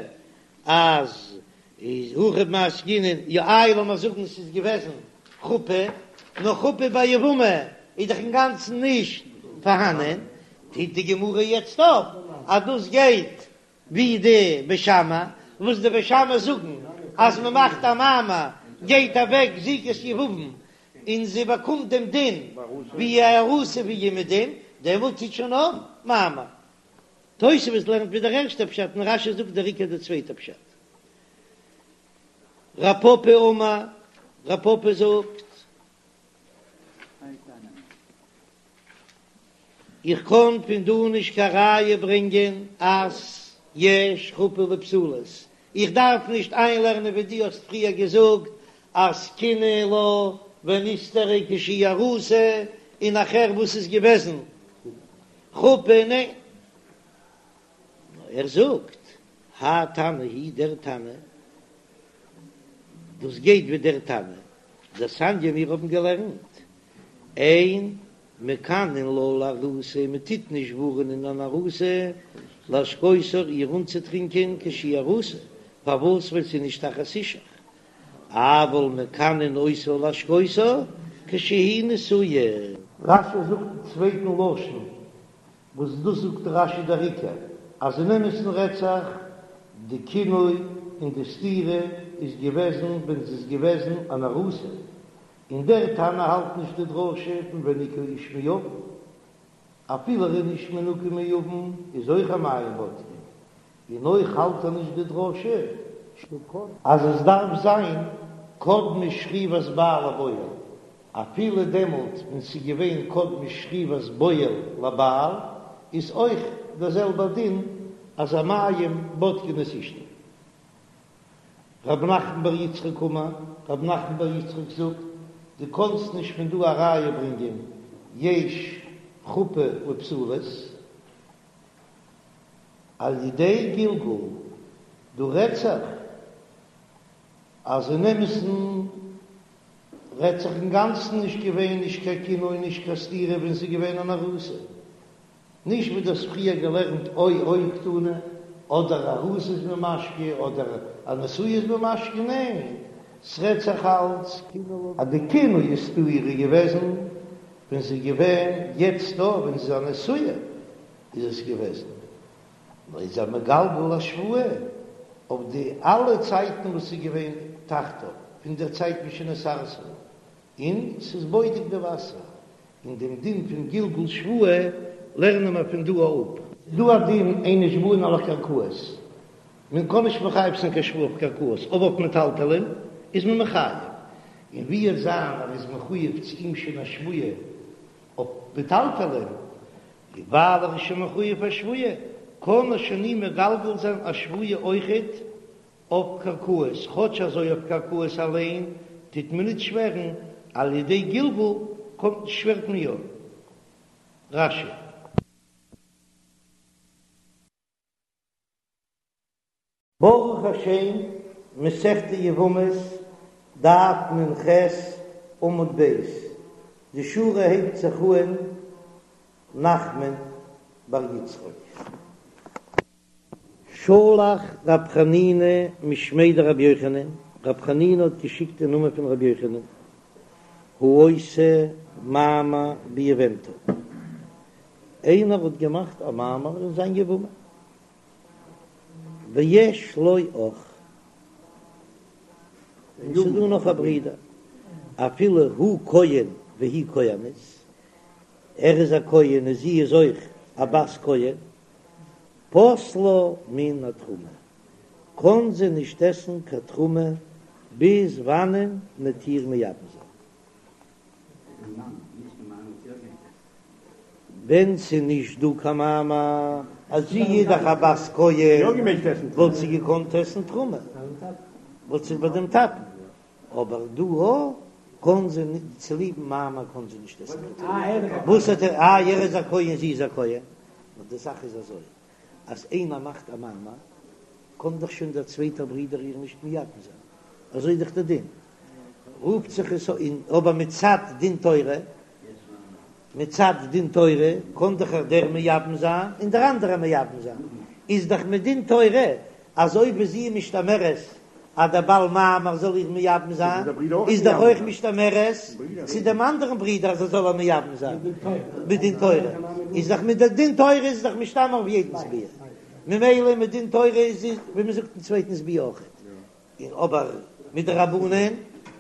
אז איז הכא במאי עסקינן, יא איי לאמיר זאגן ס'איז געוועזן חופה, נאר חופה ביי יבמה איז דאך אינגאנצן נישט פארהאנען, טוט די גמרא יעצט אויף אז דאס גייט ווי די בית שמאי, וואס די בית שמאי זאגן אז מען מאכט א מאמר גייט אוועק זיקת יבום און זי באקומט דעם דין ווי א ארוסה ווי אומעדום, דעמאלט טוט שוין אויף מאמר. תוספות לערנט ווי דער ערשטער פשט און רש"י זאגט דער עיקר די צווייטע פשט. רב פפא אמר, רב פפא זאגט. איך קען פון דא נישט קיין ראיה ברענגען אז יש חופה לפסולות, איך דארף נישט איינלערנען ווי דו האסט פריער געזאגט אז קינא לה ונסתרה כשהיא ארוסה, און נאכער וואס איז געוועזן חופה, ניין, נאר ער זאגט האי תנא הוא דער תנא, דאס גייט ווי דער תנא דתניא מיר האבן געלערנט אין מקנין לה לארוסה, מען טוט נישט ווארענען אן ארוסה להשקותה איר אנצוטרינקען כשהיא ארוסה, פארוואס ווייל ס'איז נישט תחת אישך, אבל מקנין אותה להשקותה כשהיא נשואה. רש"י זאגט אין צווייטן לשון, וואס דאס זאגט רש"י דער עיקר, אז אין אמת'ן רעדט זיך די קינוי און די סתירה איז געוועזן ווען זי איז געוועזן אן ארוסה, און דער תנא האלט נישט די דרשה פון וניקה האיש מעוון, אפילו ער איז נישט מנוקה מעוון איז אויך המים בודקין, און אויך האלט ער נישט די דרשה אז עס דארף זיין קדמה שכיבת בעל לבועל, אפילו דעמאלט ווען ס'איז געווען קדמה שכיבת בועל לבעל איז אויך דער זעלבער דין אז המים בודקין את אשתו. רב נחמן בר יצחק אמר, רב נחמן בר יצחק זאגט, דו קאנסט נישט פון דא א ראיה ברענגען יש חופה לפסולות על ידי גלגול, דא רעדט זיך אז אין אמת'ן רעדט זיך אינגאנצן נישט געווען נישט קיין קינוי נישט קיין סתירה ווען ס'איז געווען אן ארוסה, נישט ווי דו האסט פריער געלערנט או או קתני, אדער ארוסה איז מען משקה אדער א נשואה איז מען משקה, ניין, ס'רעדט זיך אלץ אז די קינוי און סתירה איז געוועזן ווען ס'איז געווען, יעצט דא ווען ס'איז א נשואה איז עס געוועזן, נאר איז ער מגלגל א שבועה אויף די אלע צייטן וואס ס'איז געווען תחתיו, פון דער צייט משנתארסה. און ס'איז בודק די וואסער, און דעם דין פון גלגול שבועה לערנען מיר פון דא אפ. דא א דין אין נשבעין על הקרקעות, מען קען נישט מחייב זיין קיין שבועה אויף קרקעות, אבער אויף מטלטלין איז מען מחייב, און ווי עס זיין אז ער איז מחויב צו אים שוין א שבועה אויף מטלטלין, ווייל ער איז שוין מחויב א שבועה, קען ער שוין אים מגלגל זיין א שבועה אויכעט אויף קרקעות, כאטש אזוי אויף קרקעות אליין טוט מען ניט שווערן, על ידי גלגול קומט שווערט מען יא. רש"י. ברוך השם, מסכת יבמות, דף נ"ח, עמוד ב', די שורה הייבט זיך אהן נחמן בר יצחק. שלח רב חנינא משמיה דרבי יוחנן, רב חנינא האט געשיקט אין נאמען פון רבי יוחנן, העושה מאמר ביבמתו, איינער האט געמאכט א מאמר אין זיין יבמה, ויש לו אח, און ס'איז דא נאך א ברודער, אפילו הוא כהן והיא כהנת, ער איז א כהן און זי איז אויך א בת כהן, פוסלה מן התרומה, קען זי נישט עסן קיין תרומה ביז וואנען מ'עט איר מייבם זיין. ווען ס'איז נישט דא קיין מאמר אז זי איז דאך א בת כהן וואלט זי געקאנט עסן תרומה, וואלט זי ביי דעם טאטן, אבער דא קען זי נישט, צוליבן מאמר קען זי נישט עסן קיין תרומה. וואס האט ער, איי ער איז א כהן זי איז א כהן, נאר די זאך איז אזוי אז איינער מאכט א מאמר קען דאך שוין דער צווייטער ברודער איר נישט מייבם זיין, אזוי איז דאך דער דין, רופט זיך עס אן, אבער מצד דין תורה, מצד דין תורה קען דאך דער מייבם זיין און דער אנדערער מייבם זיין, איז דאך מדין תורה אז אויב איז זי משתמרת אז דער בעל מאמר זאל איר מייבם זיין, איז דאך אויך משתמרת צו דעם אנדערן ברודער אז ער זאל איר מייבם זיין, מדין תורה איז דאך מדין תורה איז דאך משתמר אויף יעדנס ביאה, ממילא מדין תורה איז ווי מען זאגט אין צווייטנס ביאה אויכעט, און אבער מדרבנן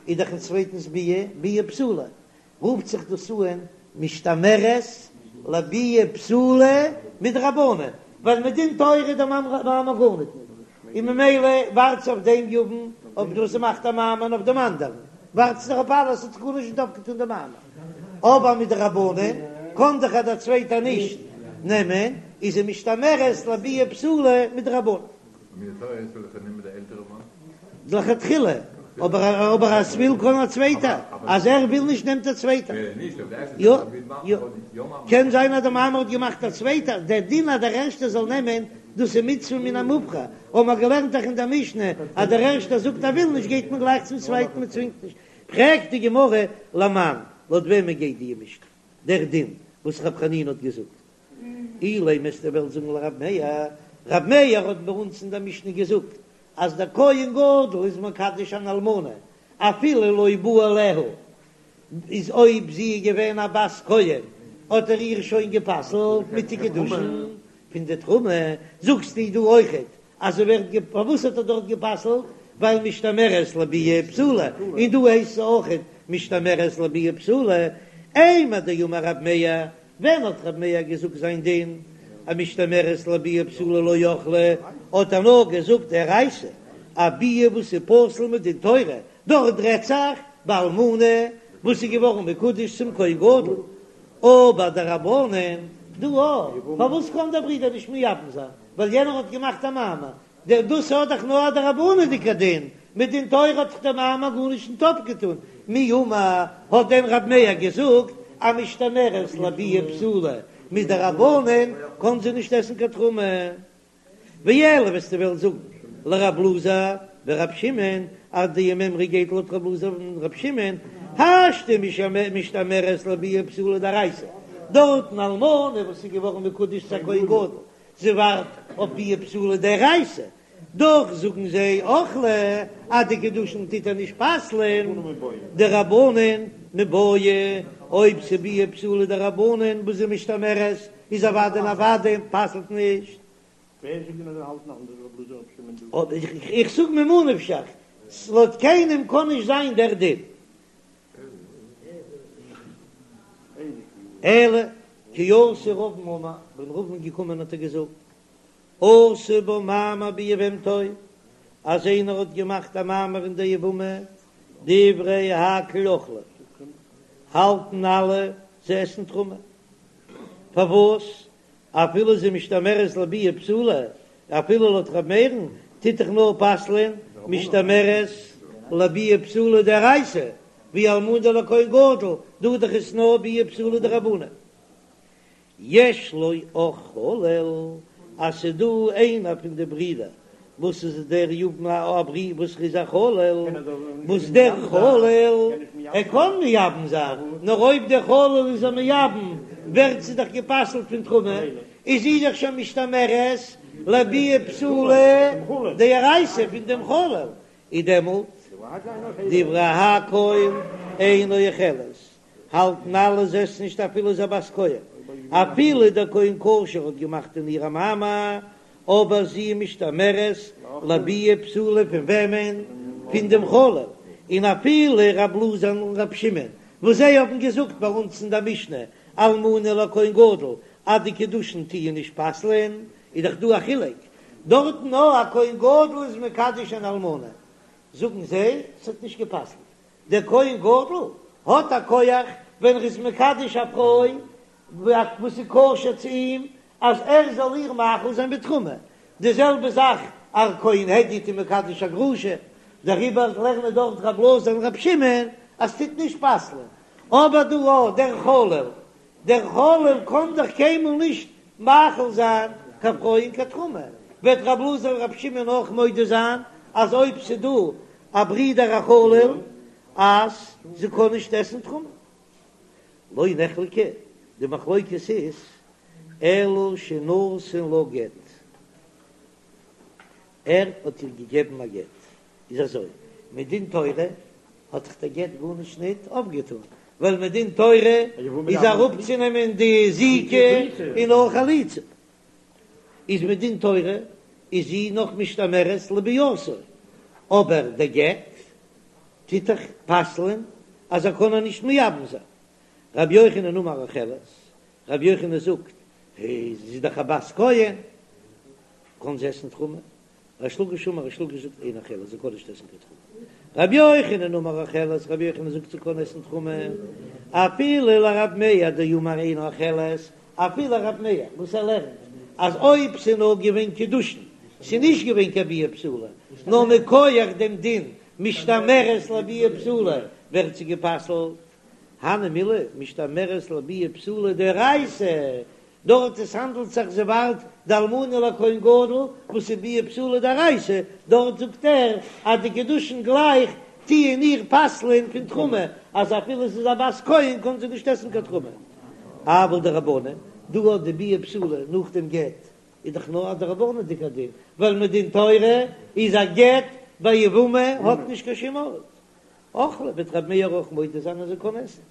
איז דאך אין צווייטנס ביאה ביאה פסולה, רופט זיך דאס אן משתמרת לביאה פסולה מדרבנן, ווייל מדין תורה איז דער מאמר גארניט ניט, און ממילא ווארט זי אויף דעם יבם אויף דאס זי מאכט א מאמר און אויף דעם אנדערן ווארט זי דאך אויף אלעס האט זיך גארנישט נישט אויפגעטון דער מאמר, אבער מדרבנן קען דאך דער צווייטער נישט נעמען, איז זי משתמרת לביאה פסולה מדרבנן. לכתחילה, אבער אבער אז ס'וויל קען א צווייטער, אז ער וויל נישט נעמט א צווייטער. יא יא, קען זיין אז די מאמר האט געמאכט א צווייטער, דער דין אז דער ערשטער זאל נעמען, דאס איז מצוה מן המובחר, האבן מיר געלערנט דאך אין דער משנה אז דער ערשטער זאגט ער וויל נישט גייט מען גלייך צום צווייטן מען צווינגט נישט. פרעגט די גמרא למאן, לויט וועמען גייט די משנה, דער דין וואס רב חנינא האט געזאגט? אילימא וועסטו וועלן זאגן לרב מאיר, רב מאיר האט ביי אונז אין דער משנה געזאגט אז דער כהן גדול איז מקדש אן אלמנה אפילו לא בא עליה, איז אויב זי איז געווען א בת כהן האט ער איר שוין גע'פסל'ט מיט די קידושין פון די תרומה, זאגסטו דא אויכעט אז זי ווערט גע פארוואס האט ער דארט גע'פסל'ט? ווייל משתמרת לביאה פסולה, און דא הייסט זי אויכעט משתמרת לביאה פסולה, אימר דאמר רב מאיר ווען האט רב מאיר געזאגט זיין דין אז משתמרת לביאה פסולה לא אכלה, האט ער נאר געזאגט דאורייתא, א ביאה וואס איז פסול מדין תורה, דארט רעדט זיך באלמנה וואס איז געווארן מקודש צום כהן גדול, אבער דרבנן דא פארוואס קען דער ברודער נישט מייבם זיין ווייל יענער האט געמאכט א מאמר, דער דאס האט דאך נאר א דרבנן'דיגע דין, מדין תורה האט דאך דער מאמר גארנישט ניט אפגעטאן, מי אמר, האט דען רב מאיר געזאגט אז משתמרת לביאה פסולה מדרבנן קען זי נישט עסן קיין תרומה? ואלא וועסטו וועלן זאגן לרב אלעזר ורב שמעון אז די מימרא גייט לויט רב אלעזר און רב שמעון, השתא משתמרת לביאה פסולה דאורייתא, דארטן אלמנה וואס איז געווארן מקודש צו א כהן גדול זי ווארט אויף ביאה פסולה דאורייתא, דאך זאגן זיי אכלה אז די קידושין טוט ער נישט פסל'ען דרבנן מיבעיא, אויב ס'ביאה פסולה דרבנן וואס איז משתמרת איז אוודאי און אוודאי פסל'ט נישט. איך זאג ממה נפשך, לויט קיינעם קען נישט זיין דער דין. אלא כי אתא רבין אמר, ווען רבין איז געקומען האט ער געזאגט, עשה בה מאמר ביבמתו, אז איינער האט געמאכט א מאמר אין די יבמה, דברי הכל אוכלות, האלטן אלע זיי עסן תרומה, פארוואס אפילו זי משתמרת לביאה פסולה, אפילו לויט ר' מאיר'ן טוט דאך נאר פסל'ען משתמרת לביאה פסולה דאורייתא, ווי אלמנה לכהן גדול, דא דאך איז נאר ביאה פסולה דרבנן. יש לו אח חלל, אז ס'דא איינער פון די ברידער וואס איז דער יבם א ברודער וואס איז א חלל, וואס דער חלל ער קען מייבם זיין, נאר אויב דער חלל איז א מייבם ווערט זי דאך גע'פסל'ט פון תרומה, איז זי דאך שוין משתמרת. לביאה פסולה דאורייתא פון דעם חלל, איז דעמאלט דברי הכל אינה אוכלת, האלטן אלע זי עסט נישט אפילו זי א בת כהן, אפילו דער כהן כשר האט געמאכט אין איר א מאמר, אבער זי איז משתמרת לביאה פסולה פון וועמען? פון דעם חלל, און אפילו רב אלעזר און רב שמעון וואס זיי האבן געזאגט ביי אונז אין דער משנה אלמנה לכהן גדול אז די קידושין טוען נישט פסל'ען, איז דאך דא א חילוק דארטן נאר א כהן גדול איז מקדש אן אלמנה, זאגן זיי ס'האט נישט גע'פסל'ט, דער כהן גדול האט א כח ווען ער איז מקדש א פרוי וואס איז כשר צו אים אז ער זאל איר מאכיל זיין בתרומה, די זעלבע זאך א כהן הדיוט איז מקדש א גרושה, דעריבער לערנען דארט רב אלעזר און רב שמעון אז ס'טוט נישט פסל'ען, אבער דא אויך דער חלל, דער חלל קען דאך קיינמאל נישט מאכיל זיין קיין פרוי אין קיין תרומה, וועט רב אלעזר און רב שמעון אויך מודה זיין אז אויב ס'דא א ברודער א חלל אז זי קען נישט עסן תרומה. לא נחלקו, די מחלוקת איז אלא שנתן לה גט, ער האט איר געגעבן א גט, איז אזוי, מדין תורה האט דאך דער גט גארנישט ניט אויפגעטאן, ווייל מדין תורה איז אראפצונעמען די זיקה און נאר חליצה, איז מדין תורה איז זי נאך משתמרת לביאתו, אבער דער גט טוט דאך פסל'ען אז ער קען איר נישט מייבם זיין. רבי יוחנן אמר אוכלת, רבי יוחנן זאגט, זי איז דאך א בת כהן, קען זי עסן תרומה. ריש לקיש אמר, ריש לקיש זאגט אינה אוכלת, זי קען נישט עסן קיין תרומה. רבי יוחנן אמר אוכלת, רבי יוחנן זאגט זי קען עסן תרומה, אפילו לרב מאיר דאמר אינה אוכלת, אפילו רב מאיר וואס ער לערנט אז אויב ס'איז נאר געווען קידושין, ס'איז נישט געווען קיין ביאה פסולה, נאר מכח דעם דין משתמרת לביאה פסולה ווערט זי גע'פסל'ט, הני מילי משתמרת לביאה פסולה דאורייתא, דארט עס האנדלט זיך זי ווארט די אלמנה לכהן גדול וואס איז ביאה פסולה דאורייתא, דארט זאגט ער אז די קידושין גלייך טוען איר פסל'ען פון תרומה, אז אפילו זי איז א בת כהן קען זי נישט עסן קיין תרומה. אבל דרבנן, דא האט די ביאה פסולה נאך דעם גט איז דאך נאר א דרבנן'דיגער דין, ווייל מדין תורה איז א גט ביי יבמה האט נישט קיין שום ארט. אכלה וועט רבי מאיר אויך מודה זיין אז זי קען עסן.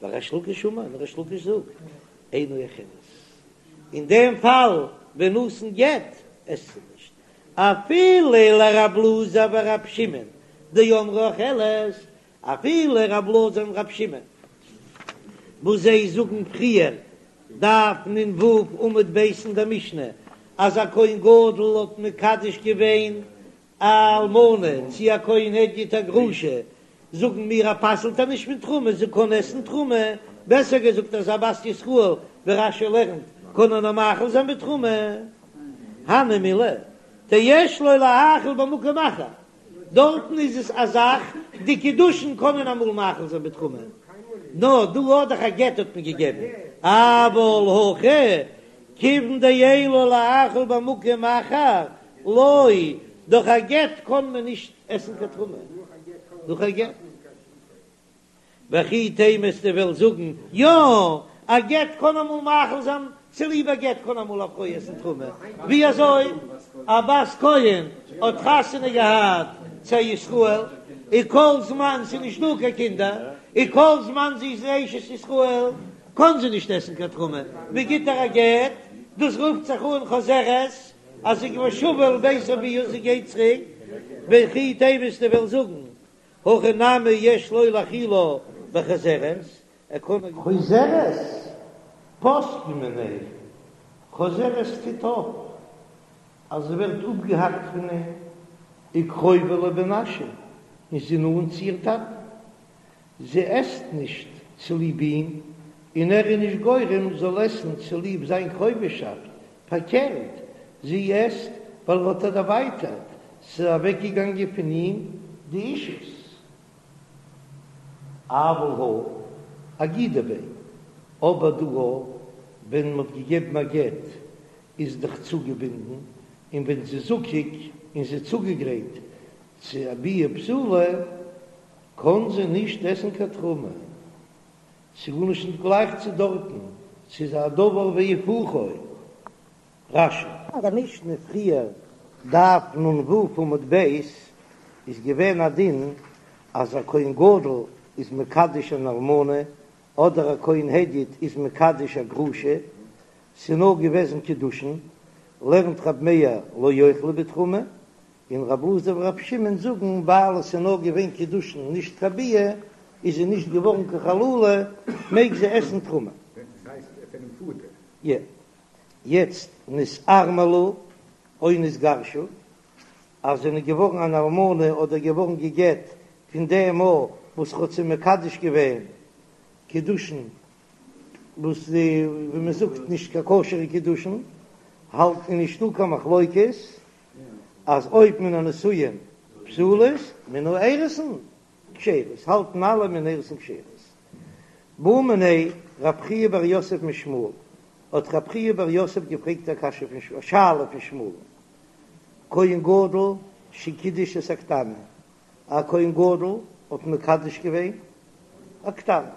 וריש לקיש אמר, און ריש לקיש זאגט, אינה אוכלת. אין דעם פאל ווען נתן גט עסט זי נישט. אפילו לרב אלעזר ורב שמעון דאמרי אוכלת, אפילו רב אלעזר און רב שמעון וואס זיי זאגן פריער דף נ"ו עמוד ב' אין דער משנה אז א כהן גדול האט מקדש געווען א אלמנה צי א כהן הדיוט א גרושה, זאגן מיר אז פסל'ט איר נישט פון תרומה, זי קען עסן תרומה, בעסער געזאגט אז א בת ישראל ווי רש"י לערנט קען ער נאר מאכיל זיין בתרומה, הני מילי דיש לו להאכיל במקום אחר, דארטן איז עס א זאך, די קידושין קענען אמאל מאכיל זיין בתרומה, נאר דא האט דאך א גט האט מען געגעבן, אבל הכא כיוון דאין לו להאכיל במקום אחר, לא, דורך א גט קען מען נישט עסן קיין תרומה, דורך א גט. וכי תימא וועסטו וועלן זאגן, יא, א גט קען אמאל מאכיל זיין, צוליב א גט קען אמאל א פרוי עסן תרומה, ווי אזוי? א בת כהן האט חתונה געהאט צו א ישראל, און כל זמן ס'איז נישט דא קיין קינדער, און כל זמן זי איז אשת ישראל, קען זי נישט עסן קיין תרומה, מען גיט איר א גט, דאס רופט זיך אן חוזרת, אז זי ושבה אל בית אביה, זי גייט צוריק, וכי תימא וועסטו וועלן זאגן, הכא נמי יש לו להאכילה בחוזרת, ער קען. חוזרת פוסקין מיניה, חוזרת טוט אויף אז זי ווערט אפגעהאקט פון אים, וקרובה לבן אשי, און זי נאנט צו איר טאטן, זי עסט נישט צוליב אים, און ער איז נישט גורם זאל עסן צוליב זיין קרובהשאפט, פארקערט, זי עסט ווייל ער האט איר דערווייטערט, ס'איז אוועקגעגאנגען פון אים די אישות. אבל הא אגידא ביה, אבער דא ווען מ'האט געגעבן א גט איז דאך צוגעבינדן, און ווען זי איז זקוק און זי איז צוגעגרייט צו א ביאה פסולה, קען זי נישט עסן קיין תרומה. ס'איז גארנישט נישט גלייך צו דארטן, ס'איז א דבר והיפוכו. רש"י. אין דער משנה פריער, דף נ"ו עמוד ב', איז געווען א דין אז א כהן גדול איז מקדש אן אלמנה, אדער א כהן הדיוט איז מקדש א גרושה, ס'איז נאר געוועזן קידושין, לערנט רב מאיר לא יאכלו בתרומה, און רב אלעזר ורב שמעון זאגן ווייל עס איז נאר געווען קידושין נישט קיין ביאה, איז זי נישט געווארן קיין חללה, מעג זי עסן תרומה. יעצט נתארמלו או נתגרשו, אז זענען געווארן אן אלמנה אדער געווארן גע'גט פון דעם מאל וואס ר'האט זיי מקדש געווען קידושין וואס די ווי מען זאגט נישט קיין כשר'ע קידושין, האלט איז נישטא קיין מחלוקת אז אויב מן הנישואין פסולות מן האירוסין כשרות, האלטן אלע מן האירוסין כשרות. בעא מיניה רב חייא בר יוסף משמואל, האט רב חייא בר יוסף געפרעגט א קשיא פון א שאלה פון שמואל, כהן גדול שקידש את הקטנה, א כהן גדול האט מקדש געווען א קטנה,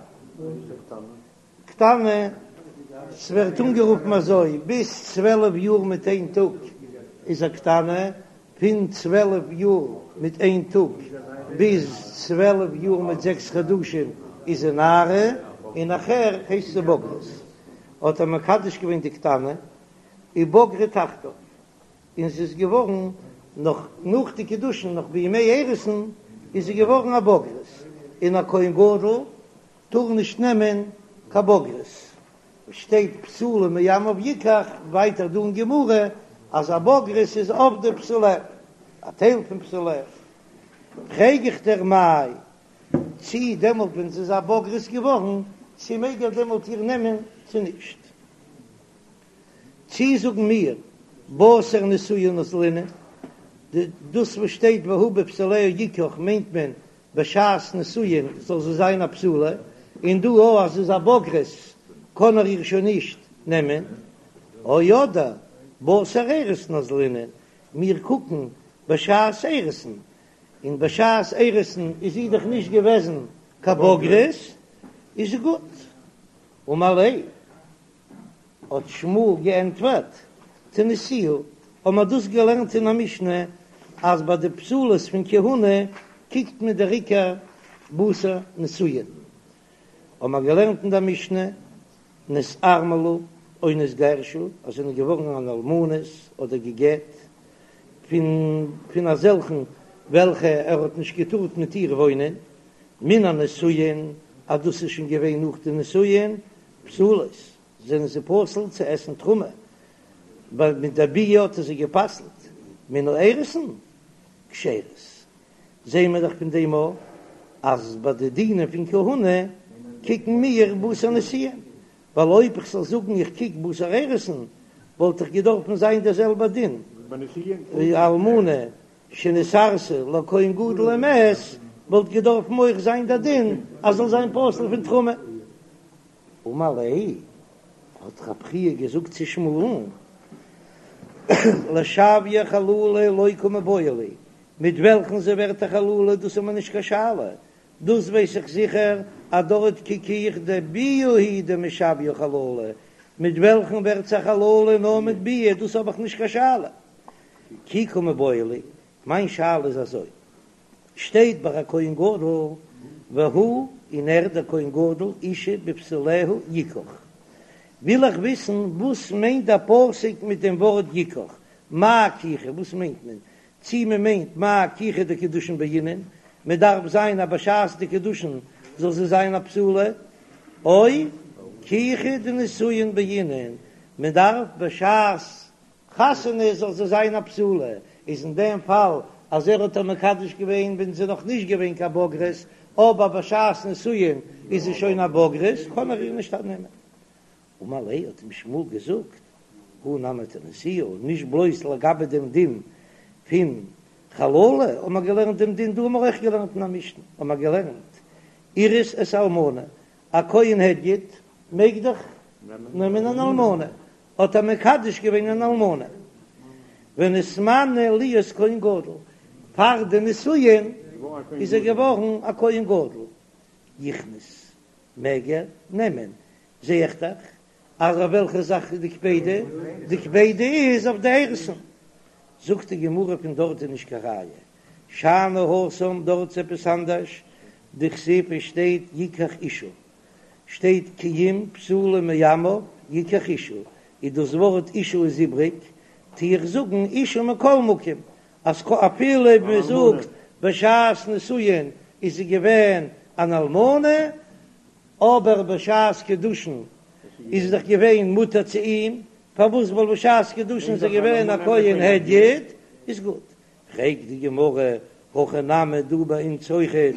קטנה, ס'ווערט אנגערופן אזוי, ביז 12 יאר מיט איין טאג איז א קטנה, פון 12 יאר מיט איין טאג ביז 12 יאר מיט זעקס חדשים איז זי נערה, און נאכער הייסט זי בוגרת. האט ער מקדש געווען די קטנה, ובגרה תחתיו, און זי איז געווארן נאך נאך די קידושין נאך בימי אירוסין איז זי געווארן א בוגרת, און א כהן גדול טאר נישט נעמען קיין בוגרת, שטייט בתולה מעמיו יקח, ווייטער דא אין גמרא אז א בוגרת איז אבדה בתוליה, א טייל פון בתוליה, פרעג איך דיר מאי, צי דעמאלט ווען זי איז א בוגרת געווארן, צי מעג ער דעמאלט איר נעמען צו נישט? צי זאגן מיר בתר נישואין אזלינן, דאס וואס שטייט והוא בבתוליה יקח מיינט מען בשעת נישואין זאל זי זיין א בתולה, און דא אויך אז זי איז א בוגרת קען ער איר שוין נישט נעמען, או אדער בתר אירוסין אזלינן, מיר קוקן בשעת אירוסין, און בשעת אירוסין איז זי דאך נישט געוועזן קיין בוגרת, איז גוט. אמר ליה. האט שמואל געענטפערט, תניתוה, האבן מיר דאס געלערנט אין א משנה, אז ביי די פסולות פון כהונה קוקט מען דער עיקר בתר נישואין. האבן מיר געלערנט אין דער משנה, נתארמלו או נתגרשו, אז זענען געווארן אן אלמנות אדער גע'גט פון פון אזעלכן וועלכע ער האט נישט געטארט מיט איר וואוינען, מן הנישואין, אז דאס איז שוין געווען נאך די נישואין, פסולות, זענען זיי פסול צו עסן תרומה, ווייל מיט דער ביאה האט ער זיי גע'פסל'ט, מן האירוסין כשרות, זעען מיר דאך פון דעם אויך אז ביי די דינים פון כהונה קוקן מיר בתר נישואין, ווייל אויב איך זאל זאגן איך קוק בתר אירוסין וואלט דאך געדארפן זיין דער זעלבער דין ווי אלמנה שנתארסה לכהן גדול ומת, וואלט געדארפן אויך זיין דער דין אז זאל זיין פסול פון תרומה. אמר ליה, האט רב חייא געזאגט צו שמואל'ן, לשויי חללה לא קא מיבעיא לי, מיט וועלכן זי ווערט א חללה דאס איז מיר נישט קיין שאלה, דאס ווייס איך זיכער אז דארט קוק איך דביאה הוא דמשוויא חללה, מיט וועלכן ווערט זי א חללה נאר מיט ביאה, דאס האב איך נישט קיין שאלה. כי קא מיבעיא לי, מיין שאלה איז אזוי, שטייט ביי א כהן גדול והוא און ער דער כהן גדול אשה בבתוליה יקח, וויל איך וויסן וואס מיינט דער פסוק מיט דעם ווארט יקח, מאי קיחה וואס מיינט מען, צי מען מיינט מאי קיחה דקידושין בעינן, מען דארף זיין אז בשעת די קידושין זאל זי זיין א בתולה, או קיחה דנישואין בעינן, מען דארף בשעת חתונה זאל זי זיין א בתולה, איז אין דעם פאל אז ער האט איר מקדש געווען ווען זי איז נאך נישט געווען קיין בוגרת, אבער בשעת נישואין איז זי שוין א בוגרת, קען ער איר נישט אננעמען. אמר ליה האט אים שמואל געזאגט, הא נמי תניתוה, נישט בלויז לגבי דעם דין פון חללה האט מען געלערנט דעם דין, דא האבן מיר אויך געלערנט אין א משנה, האט מען געלערנט אירס את האלמנה, א כהן הדיוט מעג דאך נעמען אן אלמנה, האט ער מקדש געווען אן אלמנה, ונתמנה להיות כהן גדול, פאר די נישואין איז ער געווארן א כהן גדול, יכנוס, מעג ער נעמען, זע איך דאך. אז אויף וועלכע זאך איז די קפידא? די קפידא איז אויף די אירוסין. זאגט די גמרא פון דארט איז נישט קיין ראיה, שאני התם דארט איז עפעס אנדערש, דכתיב עס שטייט יקח אשה, שטייט כי אם בתולה מעמיו יקח אשה, איז דאס ווארט אשה איז איבריג, טו איך זאגן אשה מכל מקום, אז אפילו אויב מען זאגט בשעת נישואין איז זי געווען אן אלמנה, אבער בשעת קידושין איז זי דאך געווען מותר צו אים, פארוואס ווייל בשעת קידושין איז ער געווען א כהן הדיוט, איז גוט. פרעגט די גמרא, הכא נמי דא ביי אונז אויכעט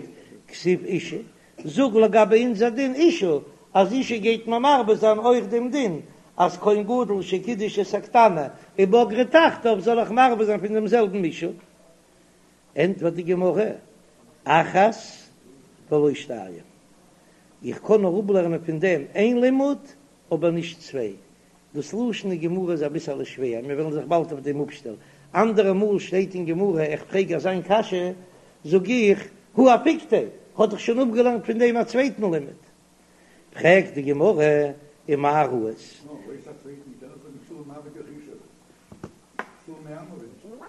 כתיב אשה, זאג לגבי אונזער דין אשה, אז אשה גייט מען מרבה זיין אויך דעם דין אז כהן גדול שקידש את הקטנה ובגרה תחתיו זאל איך מרבה זיין פון דעם זעלבן אשה? ענטפערט די גמרא, אחת ולא שתיים, איך קען נאר אפלערנען פון דעם איין לימוד אבער נישט צוויי, דאס לשון אין גמרא איז אביסעלע שווער, מיר וועלן זיך באלד אויף דעם אפשטעלן. אנדערע מאל שטייט אין גמרא, איך פרעג אזיין קשיא, זאג איך, הא אפיקתיה, האט דאך שוין אפגעלערנט פון דעם א צווייטן לימוד. פרעגט די גמרא, ומה ראית?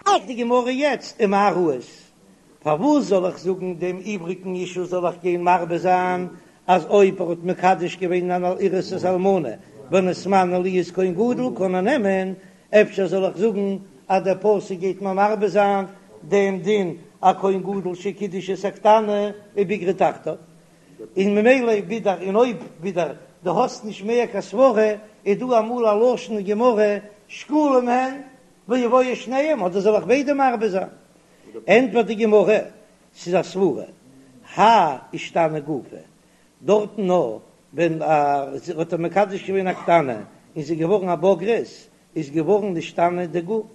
פרעגט די גמרא יעצט, ומה ראית? פארוואס זאל איך זאגן דעם איבריגן אשה זאל איך גיין מרבה זיין אז אויב ער האט מקדש געווען אן אירוסת אלמנה ונתמנה להיות כהן גדול קען ער נעמען, אפשר זאל איך זאגן אז דער פסוק גייט מיר מרבה זיין דעם דין א כהן גדול שקידש את הקטנה ובגרה תחתיו, און ממילא ווידער און אויב ווידער דו האסט נישט מער קיין סברה איז דא אמאל א לשון אין גמרא שקולים הן ויבואו שניהם אדער זאל איך ביידע מרבה זיין? ענטפערט די גמרא, ס'איז א סברה, האי אישתני גופא, דארטן נאר ווען האט ער מקדש געווען א קטנה און זי איז געווארן א בוגרת, איז געווארן נשתנה די גוף,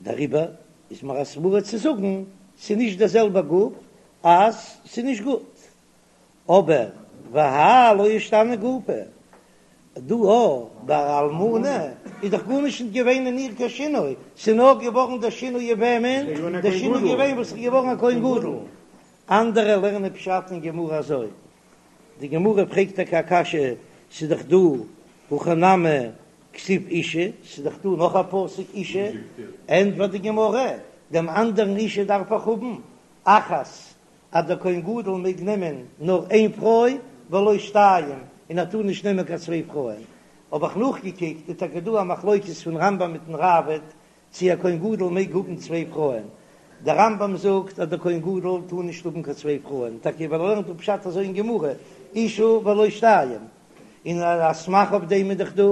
דעריבער איז מיר א סברה צו זאגן ס'איז נישט דער זעלבער גוף אז ס'איז נישט גוט. אבער והאי לא אישתני גופא, דא א ביי א אלמנה איז דאך גארנישט נישט געווען אין איר קיין שינוי, ס'איז נאר געווארן דער שינוי אין וועמען? דער שינוי איז געווען וואס איז געווארן א כהן גדול. אנדערע לערנען פשט אין גמרא אזוי, די גמרא פרעגט טאקע א קשיא, ס'איז דאך דא הכא נמי כתיב אשה, ס'איז דאך דא נאך א פסוק אשה, ענטפערט די גמרא, דעם אנדערן אשה דארף איך האבן אחת אז דער כהן גדול מעג נעמען נאר איין פרוי ולא שתיים, און ער טאר נישט נעמען קיין צוויי פרויען, האב איך נאכגעקוקט איז טאקע דא א מחלוקת פון רמב"ם מיטן ראב"ד צי א כהן גדול מעג האבן צוויי פרויען, דער רמב"ם זאגט אז דער כהן גדול טאר נישט האבן קיין צוויי פרויען, טאקע ווייל ער לערנט אפ פשט אזוי אין גמרא, אשה ולא שתיים, און א סמך אויף דעם איז דאך דא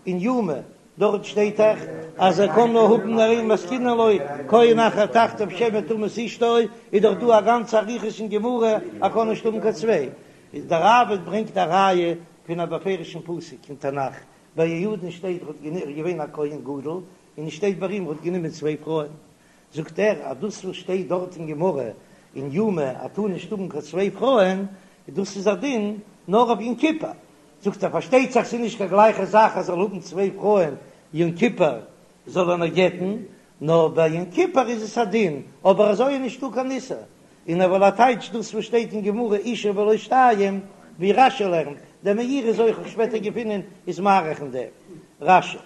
אין יומא, דארט שטייט דאך אז ער קען נאר האבן נאר איין מתקינין לו כהן אחר תחתיו שמא תמות אשתו, איז דאך דא א גאנצע אריכות אין גמרא ער קען נישט האבן קיין צוויי, איז דער ראב"ד ברענגט א ראיה פון א בפירוש'ן פסוק אין תנך, ביי יהוידע'ן שטייט ער האט געווען א כהן גדול, און עס שטייט ביי אים ער האט גענומען צוויי פרויען, זאגט ער אז דאס וואס שטייט דארט אין גמרא אין יומא אז טאר נישט האבן קיין צוויי פרויען, דאס איז א דין נאר אויף יום כיפור, זאגט ער פארשטייט זיך ס'איז נישט קיין גלייכע זאך אז זאל האבן צוויי פרויען יום כיפור זאל ער נאר גט'ן, נאר ביי יום כיפור איז עס א דין, אבער אזוי איז נישטא קיין איסור, און ער וויל א טייטש דאס וואס שטייט אין גמרא אשה ולא שתיים, ווי רש"י לערנט, דער מאירי איז אויך שפעטער געפונען איז מאריך אין דעם רש"י.